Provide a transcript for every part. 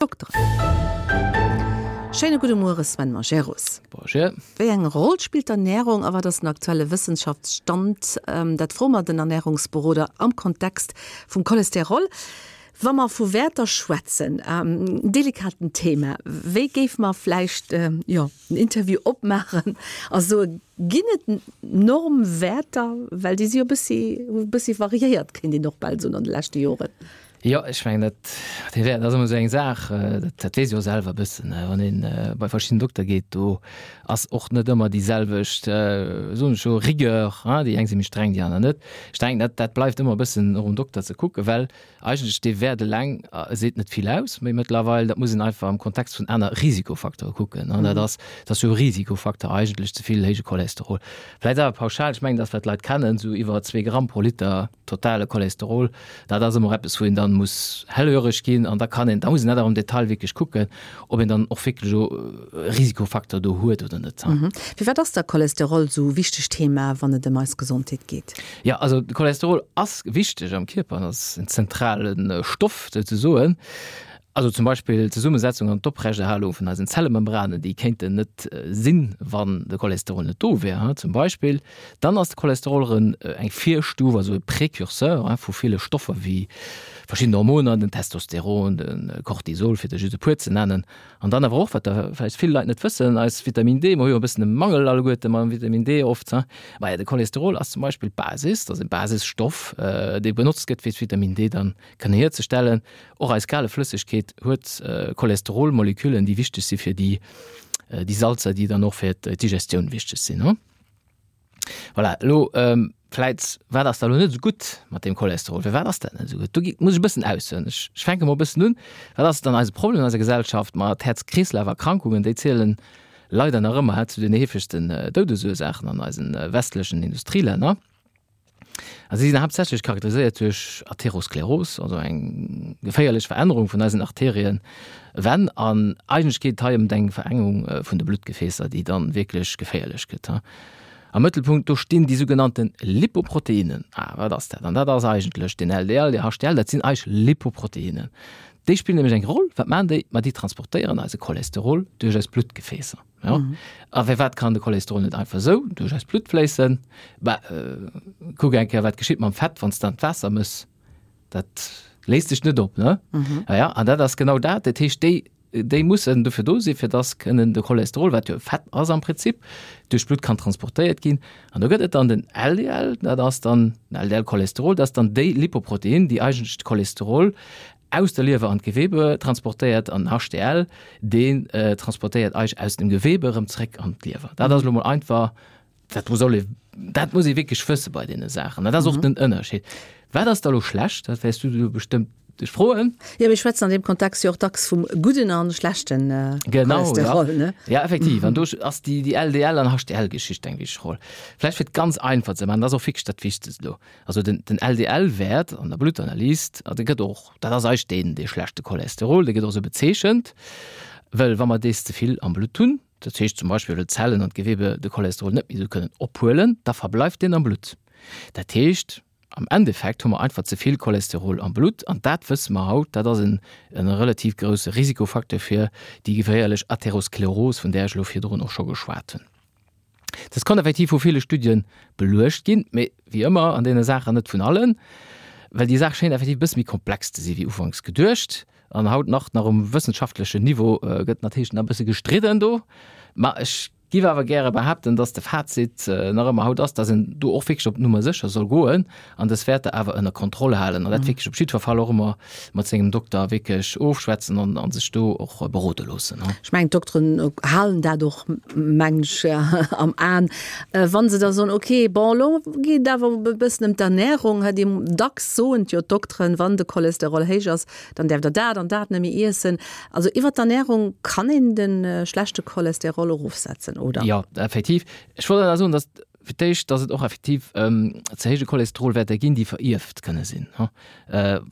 Dokteren. Schéine gudde Muere Sven Majerus. Bonjour. Wéi eng Roll spillt d'Ernärung a wat ass den aktuelle Wëssenschaftsstand? Dat froe mer den Ernärungsberoder am Kontext vum Cholesterol. Wa mer vu Wäerter schwätzen, en delikaten Thema, wéi géife mer vläicht, jo, den Interview opmaachen a soe, ginn et Normwäerter? Well déi si jo e bëssi, hu e bëssi variéiert, kéint een och bal soen, an de leschte Joren. Jo, ech mengen dat dee Wäert ass ëmmer esou eng Saach, dat dat weess ee jo selwer e bëssen, wann een bei verschidden Dokter geet, do ass och net ëmmer déi selwecht, soen ech elo, Rigueur, hein, déi eng si méi streng, déi aner net. Ech denken, dat dat bleift ëmmer e bëssen och um Dokter ze kucken, well eigentlech dee Wäert eleng seet net vill aus, méi mëttlerweil, dat muss een einfach am Kontext vun aner Risikofacteure kucken, an dat ass, dat ass jo e Risikofacteur eigentlech, ze vill héije Cholesterol. Vläicht awer pauschal, ech mengen, dat wat d'Leit kennen, esou iwwer zwee Gramm pro Liter, totale Cholesterol, dat ass ëmmer eppes, wou een dann muss hellhöreg ginn an da kann een, da muss een dat awer am Detail wierklech kucken, ob een dann och wierklech elo e Risikofaktor do huet oder net. Firwat ass da Cholesterol esou e wichtegt Thema, wann et ëm eis Gesondheet geet? Jo, also de Cholesterol ass wichteg am Kierper an ass en zentrale Stoff souzesoen. Also zum Beispill d'Zesummesetzung an d'Oprechterhalung vun eisen Zellemembranen, déi kéinten net sinn, wann de Cholesterol net do wär, zum Beispill. Dann ass de Cholesterol erëm eng Virstuf, also e Précurseur vu ville Stoffer wéi verschidden Hormoner, den Testosteron, de Cortisol, fir der just e puer ze nennen. An dann awer och, wat der vläicht vill Leit net wëssen, eis Vitamin D, mer hu jo e bëssen e Mangel alleguerte mam Vitamin D oft, maja de Cholesterol ass zum Beispill d'Basis, dat ass e Basisstoff, dee benotzt gëtt fir d'Vitamin D dann kënne hierzestellen. Och eis gale Flëssegkeet huet Cholesterolmoleküllen, déi wichteg si fir déi déi Salzer, déi dann och fir d'Digestioun wichteg sinn. Voilà, elo vläit, wat ass da elo net esou gutt mat deem Cholesterol? Firwat ass dat net esou gutt? Do gi muss ech e bëssen aushuelen. Ech ech fänke mol e bëssen un. Wat ass dann eise Problem an eiser Gesellschaft? Ma d'Häerz-Kreeslaf-Erkrankungen, déi zielen leider nach ëmmer zu den heefegsten Doudesursaachen an eisen westlechen Industrielänner. A si sinn haaptsächlech charakteriséiert duerch Atheroskleros, also eng geféierlech Verännerung vun eisen Arterienwänn. An eigentlech geet et hei ëm eng Verengung vun de Bluttgefäässer, déi dann wierklech geféierlech gëtt. Am Mëttelpunkt do stinn déi sougenannte Lipoproteinen. Ah, wat ass dat? An dat ass eigentlech den LDL, de HDL, dat sinn eigentlech Lipoproteinen. Déi spillen nämlech eng Roll. Wat maachen déi? Ma déi transportéieren eise Cholesterol duerch eis Bluttgefäässer. Ja. Mhm. A firwat kann de Cholesterol net einfach sou duerch eist Blutt fléissen? Bah, äh, kuck eng Kéier, wat geschitt mam Fett, wann s de an d'Waasser mëss. Dat léist sech net op, ne? Mhm. Ja, ja, an dat ass genau dat. Dat heescht, déi, déi mussen dofir do sinn, fir dass kënnen de Cholesterol, wat jo Fett ass am Prinzip, duerch d'Blutt kann transportéiert ginn. An do gëtt et dann den LDL, dat ass dann den LDL-Cholesterol, dat ass dann déi Lipoprotein, déi eigentlech de Cholesterol aus der Liewer an d'Gewebe transportéiert an HDL, deen transportéiert eis aus dem Gewebe erëm zréck an d'Liewer. Dat ass elo mol einfach, dat soll ee, dat muss ee wierklech wësse bei deene Saachen. Dat ass och den Ënnerscheed. Wat ass da elo schlecht? Dat wäers du elo bestëmmt dech froen. Jo, mir schwätzen an deem Kontext jo och dacks vum gudden an schlechten Cholesterol, ne? Genau, ja. Ja, effektiv. An do ass déi LDL an HDL-Geschicht eng wichteg Roll. Vläicht fir et ganz einfach ze maachen, dat ass och wierklech dat Wichtegst elo. Also den, den LDL-Wäert an der Bluttanalys, dee gëtt och, dat ass eigentlech deen, dee schlechte Cholesterol, dee gëtt och esou bezeechent, well wa mer dees ze vill am Blutt hunn, dat heescht zum Beispill well d'Zellen an d'Gewebe de Cholesterol net méi esou kënnen ophuelen, da verbleift deen am Blutt. Dat heescht, am Endeffekt hu mer einfach ze vill Cholesterol am Blutt an dat wësse mer haut, dat ass en, en relativ grousse Risikofacteur fir déi geféierlech Atheroskleros, vun där ech elo virdrun och scho geschwat hunn. Dës konnt effektiv vu ville Studie beluecht ginn, mee wéi ëmmer an deene Saachen net vun allen, well déi Saach schéint effektiv e bësse méi komplex ze si wéi ufanks geduecht. An haut nach nach um wëssenschaftlechen Niveau gëtt natierlech nach e bësse gestridden do. Ma ech giff awer gäre behaapten, dass de Fazit nach ëmmer haut ass, dass een do och wierklech op Nummer sécher soll goen an dës Wäerter awer ënner Kontroll halen an dat wierklech op jiddwer Fall och ëmmer mat sengem Dokter wierklech ofschwätzen an an sech do och berode loossen. Ech mengen, d'Dokteren halen dat och, mengen ech, am Aen, wa se da soen, okay, bon, elo geet et awer e bëssen ëm d'Ernärung. Déi dacks soen jo d'Dokteren, wann de Cholesterol héich ass, dann däerft Der dat an dat net méi iessen. Also iwwer d'Ernärung kann een de schlechte Cholesterol erofsetzen, oder? Jo, effektiv. Ech wollt awer soen, datt Fir d'éischt, dass et och effektiv ze héije Cholesterolwäerter ginn, déi verierft kënne sinn.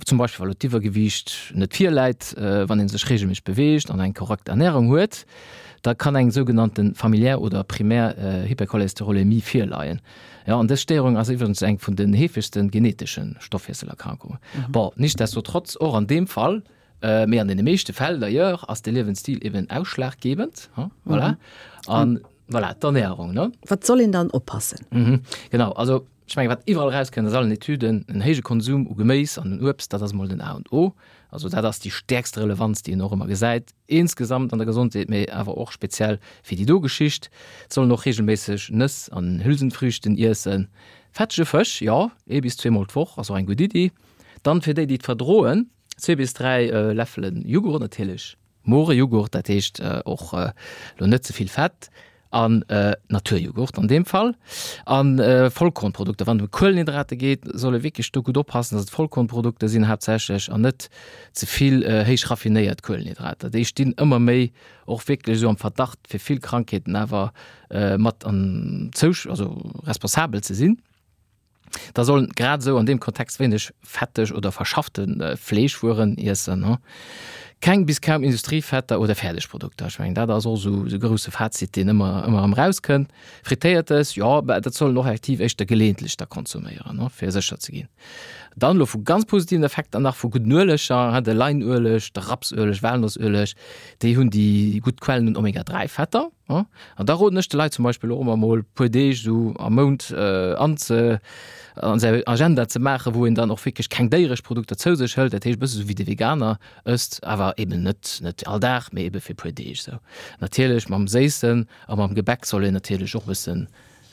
Zum Beispill, wa lo d'Iwwergewiicht net virläit, wann ee sech reegelméisseg beweegt an eng korrekt Ernärung huet, da kann eng sougenannte familiär oder primär Hypercholesterolämie virleien. Jo, an dës Stéierung ass iwwregens eng vun den heefegste geneetesche Stoffwiesselerkrankungen. Bon, nichtsdestotrotz, och an deem Fall. Mee an deene meeschte Fäll d'ailleurs ass de Liewensstil eben ausschlaggebend, voilà. An voilà, d'Ernährung, ne? Wat soll een dann oppassen? Mhm, genau, also ech mengen, wat iwwerall erauskënnt aus allen Etüden, en héije Konsum u Geméis an un Uebst, dat ass emol den A und O. Also dat ass déi stäerkst Relevanz, déi een och ëmmer gesäit, insgesamt an der Gesondheet, mee awer och speziell fir déi do Geschicht. Et soll een och reegelméisseg Nëss an Hülsenfrüchten iessen. Fettege Fësch, jo, ee bis zweemol d'Woch ass och eng gutt Iddi. Dann fir déi, déi et verdroen, zwee bis 3 Läffelen Jughurt, natierlech more Jughurt, dat heescht och lo net ze vill Fett, an Naturjughurt an deem Fall, an Vollkornprodukter. Wann et ëm Kuelenhydrate geet, soll ee wierklech do gutt oppassen, dass et Vollkornprodukter sinn haaptsächlech an net ze vill héich raffinéiert Kuelenhydrater. Déi stinn ëmmer méi och wierklech esou am Verdacht fir vill Krankheeten awer mat an zousch, also responsabel ze sinn. Da sollen grad esou an deem Kontext wéineg fetteg oder verschaffte Fleeschwueren iessen. Keng bis kaum Industriefetter oder Fäerdegprodukter. Ech mengen, dat ass och esou e grousse Fazit, deen ëmmer ëmmer erëm erauskënnt. Frittéiertes, jo, mä dat soll een och effektiv éischter geleeëntlech da konsuméieren, fir sécher ze ginn. Dann elo vu ganz positiven Effekter nach vu gudden Ueleger, de Leinueleg, de Rapsueleg, Walnossueleg, déi hunn déi gutt Quellen un Omega 3 Fetter. An da roden ech de Leit zum Beispill och ëmmer mol puer Deeg esou am Mount an ze an säi Agenda ze maachen, wou een dann och wierklech keng déieresch Produkter zou sech hëlt, dat heescht e bësse sou wéi de Veganer ësst, awer eben net net all Dag, mee ebe fir puer Deeg esou. Natierlech mam Séissen a mam Gebäck soll een natierlech och e bëssen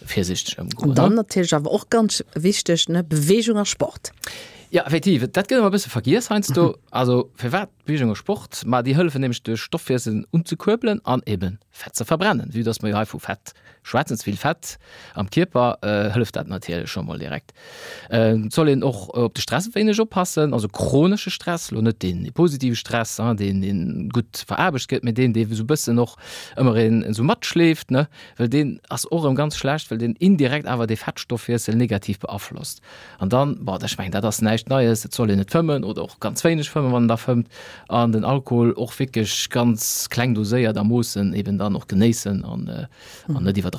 virsichteg ëmgoen. An dann natierlech awer och ganz wichteg, ne, Beweegung a Sport. Ja, effektiv, dat gëtt ëmmer e bësse vergiess heiansdo. Also firwat Beweegung a Sport? Ma déi hëllefen nämlech de Stoffwiessel unzekuerbelen an eben Fett ze verbrennen. Vue dass mer jo hei vu Fett schwätzen, ze vill Fett am Kierper, hëlleft dat natierlech scho mol direkt. Et soll een och op de Stress e wéineg oppassen, also chronesche Stress, lo net deen positive Stress, deen deen gutt veraarbecht gëtt, mee deen dee sou bëssen och ëmmer een esou matschleeft, ne. Well deen ass och erëm ganz schlecht, well deen indirekt awer dee Fettstoffwiessel negativ beaflosst. An dann, bon, ech mengen, dat ass näischt Neies, et soll een net fëmmen oder och ganz wéineg fëmmen, wann een da fëmmt, an den Alkohol och wierklech ganz kleng doséiert a Moossen eben dann och genéissen an net iwwerdreiwen.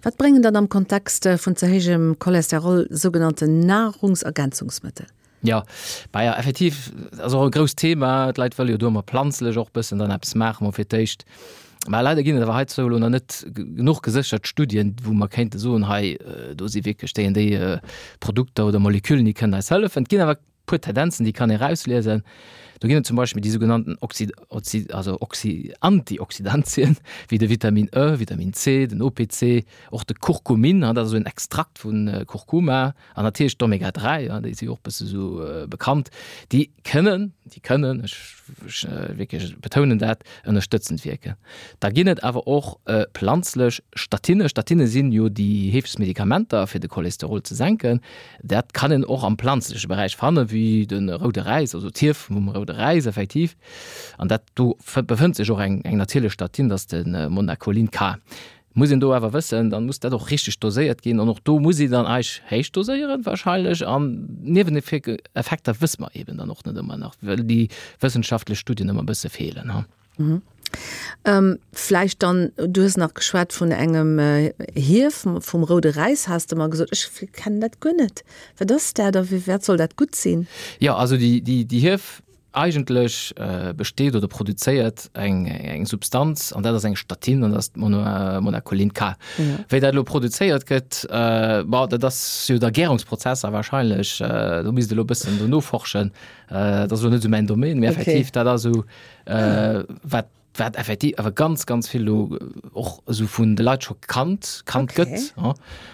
Wat bréngen dann am Kontext vun ze héijem Cholesterol sougenannten Nahrungsergänzungsmëttel? Jo, bah ja, effektiv ass och e grousst Thema. D'Leit wëlle jo do ëmmer planzlech och bëssen dann eppes maachen, mol fir d'éischt. Mä leider ginn et awer heizou elo nach net genuch geséchert Studien, wou mer kéinte soen, hei do si wierklech déi an déi Produkter oder Moleküllen, déi kënnen eis hëllefen. Et ginn awer e puer Tendenzen, déi kann ee erausliesen. Do ginn et zum Beispill déi sougenannten Oxy, Oxy, also Oxy, Antioxidantien, wéi de Vitamin E, Vitamin C, den OPC, och de Kurkumin, dat ass esou en Extrakt vu Kurkuma, An natierlech d'Omega 3, ja, déi si och bësse sou bekannt, déi kënnen, déi kënnen, ech, ech wierklech betounen dat, ënnerstëtzend wierken. Da ginn et awer och planzlech Statine. Statine sinn jo déi heefegst Medikamenter, fir de Cholesterol ze senken. Dat kann een och am planzleche Beräich fannen, wéi de roude Räis, also d'Hief vum roude Räis effektiv. An dat do befënnt sech och eng, eng natierlech Statine, dat ass de Monacolin K. Muss een do awer wëssen, dann muss dat och richteg doséiert ginn an och do muss een dann eich héich doséieren wahrscheinlech an Nieweneffekter wësse mer eben dann och net ëmmer nach, well déi wëssenschaftlech Studien ëmmer e bësse feelen. Ha. Mhm. Vläicht dann, du hues nach geschwat vun engem Hief vum roude Räis, has de mer gesot. Ech kennen dat guer net. Wat ass dat a fir wat soll dat gutt sinn? Jo, also déi, déi, déi Hief Eigentlech besteet oder produzéiert eng eng Substanz, an dat ass eng Statin, an dat ass d'Monacolin K. Wéi dat elo produzéiert gëtt, bon, dat ass jo da Gärungsprozesser wahrscheinlech, do misst elo e bëssen do noforschen, dat ass elo net esou mäin Domaine, mee effektiv dat ass esou wat wat effektiv awer ganz ganz vill lo och esou vun de Leit scho kannt kannt okay. gëtt ja.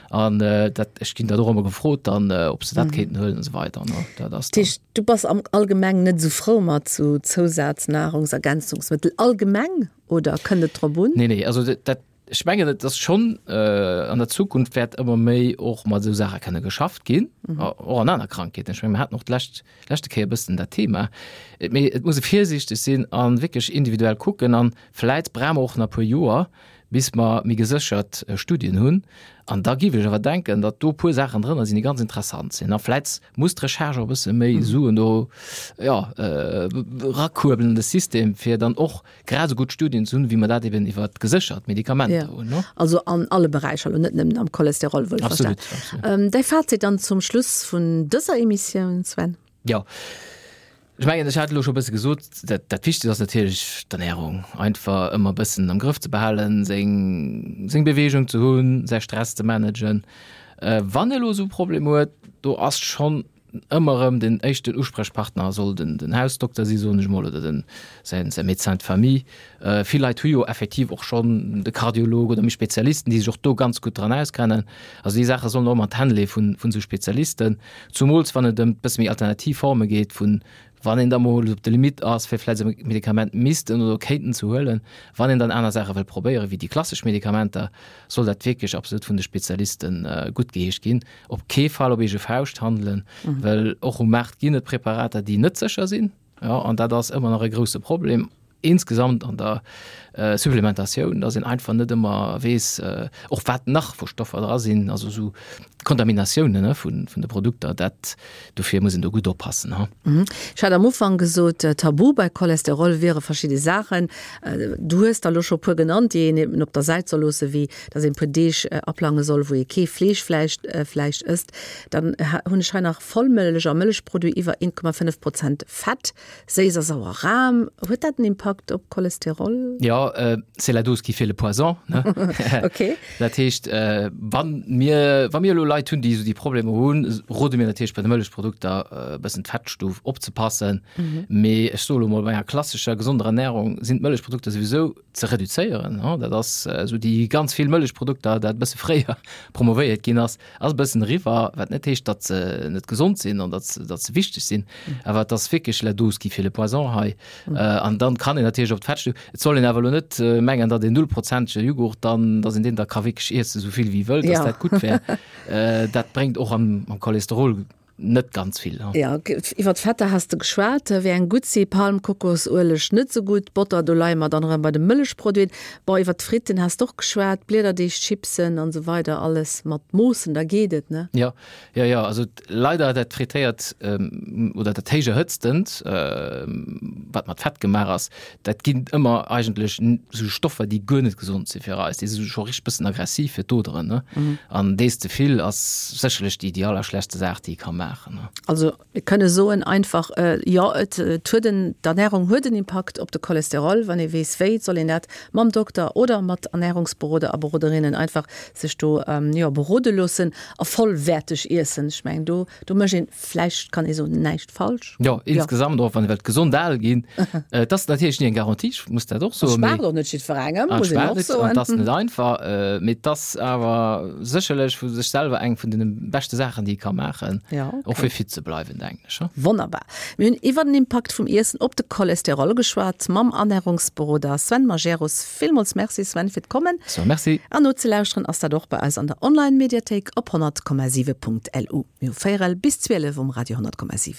an äh, dat ech ginn dat och ëmmer gefrot dann äh, ob se dat mhm. kéinten huelen und so weiter ne? dat ass Tisch, du bass am allgemeng net so frou mat zu Zousaznahrungsergänzungsmittel allgemeng oder kënnt et drop un? Nee nee also dat, dat Ech mengen, et ass schonn, an der Zukunft wäert ëmmer méi och mat esou Saache kënne geschafft ginn, och an aner Krankheeten. Ech menge mir haten och d'lescht, leschte Kéier e bëssen dat Thema. Mee et muss e virsiichteg sinn a wierklech individuell kucken. A vläit brauche mer och nach e puer Joer, bis mer méi geséchert Studien hunn. An da géif ech awer denken, datt do e puer Saachen drënner sinn, déi ganz interessant sinn. A vläit muss d'Recherche och e bësse méi Suen do, jo, erakuerbelen an de System, fir dann och grad esou gutt Studien ze hunn, wéi mer dat eben iwwer geséchert Medikamenter hunn. Ja. Also an alle Beräicher, elo net nëmmen am Cholesterol, wuel verstan. Absolut, absolut. Däi Fazit dann zum Schluss vun dëser Emissioun, Sven? Jo. Ech mengen, ech hat elo scho e bësse gesot, dat, dat Wichtegst ass natierlech d'Ernärung. Einfach ëmmer e bëssen am Grëff ze behalen, seng, seng Beweegung ze hunn, säi Stress ze managen. Wann ee elo esou e Problem huet, do ass schonn ëmmer erëm den éischten Usprechpartner soll den, den Hausdokter si soen ech emol oder den, säin, säi Médecin de famille. Vill Leit hu jo effektiv och schonn de Kardiolog oder méi Spezialisten, déi sech och do ganz gutt dran auskennen. Also déi Saache sollen och ëmmer an d'Hänn leeë vun, vun esou Spezialisten. Zumools wann et ëm bësse méi alternativ Forme geet vun, wann een da mol op der Limite ass, fir vläicht e Medikament missten oder kéinten ze huelen, wann een dann aner Saache wëll probéieren, wéi déi klassesch Medikamenter, soll dat wierklech absolut vun de Spezialiste guttgeheescht ginn. Op kee Fall op eege Fauscht handelen, well och um Maart ginn et Preparater, déi net sécher sinn. Jo, an dat ass ëmmer nach e grouse Problem insgesamt an der Supplementatioun, dass een einfach net ëmmer weess, och wat nach vu Stoffer dra sinn, also esou Kontaminatiounen, ne, vun de Produkter. Dat, dofir muss een do gutt oppassen, ha. Ech hat am Ufank gesot, Tabu bei Cholesterol wiere verschidde Saachen. Du hues der elo scho e puer genannt, déi een eben op der Säit soll loossen, wéi dass een e puer Deeg aplange soll, wou ee kee Fleesch vläicht, vläicht ësst. Dann hunn ech hei nach Vollmëllech a Mëllechproduit iwwer 1,5 Prozent Fett, séiss a sauer Ram. Huet dat en Impakt op Cholesterol? Jo, c'est la dose qui fait le poison, ne? Ok. Dat heescht, wa mir, wa mir elo Leit hunn, déi esou déi Problemer hunn, rode mir natierlech bei de Mëllechprodukter e bëssen d'Fettstuf opzepassen. Mee ech soe lo mol, bei enger klassescher gesonder Ernärung sinn d'Mëllechprodukter souwisou ze reduzéieren. Dat ass esou déi ganz vill Mëllechprodukter, dat e bësse fréier promovéiert ginn ass, Ass e bëssen eriwwer, wat net heescht, datt se net gesond sinn an datt datt se wichteg sinn, awer et ass wierklech la dose qui fait le poison hei. An dann kann een natierlech op d'Fettstu. Et soll een awer elo net mengen, datt een nullprozentege Jughurt dann, datt een deen da ka wierklech iessen, esou vill wéi wëllt, datt dat gutt wär. Dat bréngt och am am Cholesterol Net ganz vill. Jo, iwwer d'Fetter has de geschwat. Wéi eng gutt si? Palm, Kokosueleg net sou gutt, Botter, do leie mer dann erëm bei de Mëllechproduiten. Bon, iwwer d'Fritten has de och geschwat, Bliederdeeg, Chipsen an esou weider, alles mat Moossen, da geet et, ne? Jo, jo, jo. Also leider dat frittéiert oder dat héich erhëtztent, wat mat Fett gemaach ass, Dat ginn ëmmer eigentlech esou Stoffer, déi guer net gesond si fir eis. Déi si scho richteg bëssen aggressiv fir d'Oderen, ne? An dees ze vill ass sécherlech déi, déi allerschlechtste Saach, déi ee ka maachen, ne? Also mir kënne soen einfach, jo, et huet en, d'Ernärung huet en Impakt op de Cholesterol. Wann ee weess wéi, soll een dat mam Dokter oder mat Ernärungsberoder a beroderinnen einfach sech do, jo, berode loossen a vollwäerteg iessen. Ech mengen do, do mécht een vläicht, kann ee soen, näischt falsch. Jo, insgesamt och, wann ee wëllt gesond al ginn. Et ass natierlech ni eng Garantie, ech muss dat och soen. Et schmaacht och net jiddwerengem, muss een och soen. Et ass net einfach, mee et ass awer sécherlech vu sech selwer eng vun deene beschte Saachen, déi ee ka maachen, och fir fit ze bleiwen, denken ech. Wonnerbar. Mir hunn iwwer den Impakt vum Iessen op de Cholesterol geschwat mam Ernärungsberoder Sven Majerus. Villmools Merci Sven fir d'Kommen. So, merci. An nozelauschteren ass dat och bei eis an der Online-Mediathéik op 100,7.lu. Mir hu véierel bis 12 um Radio 100,7.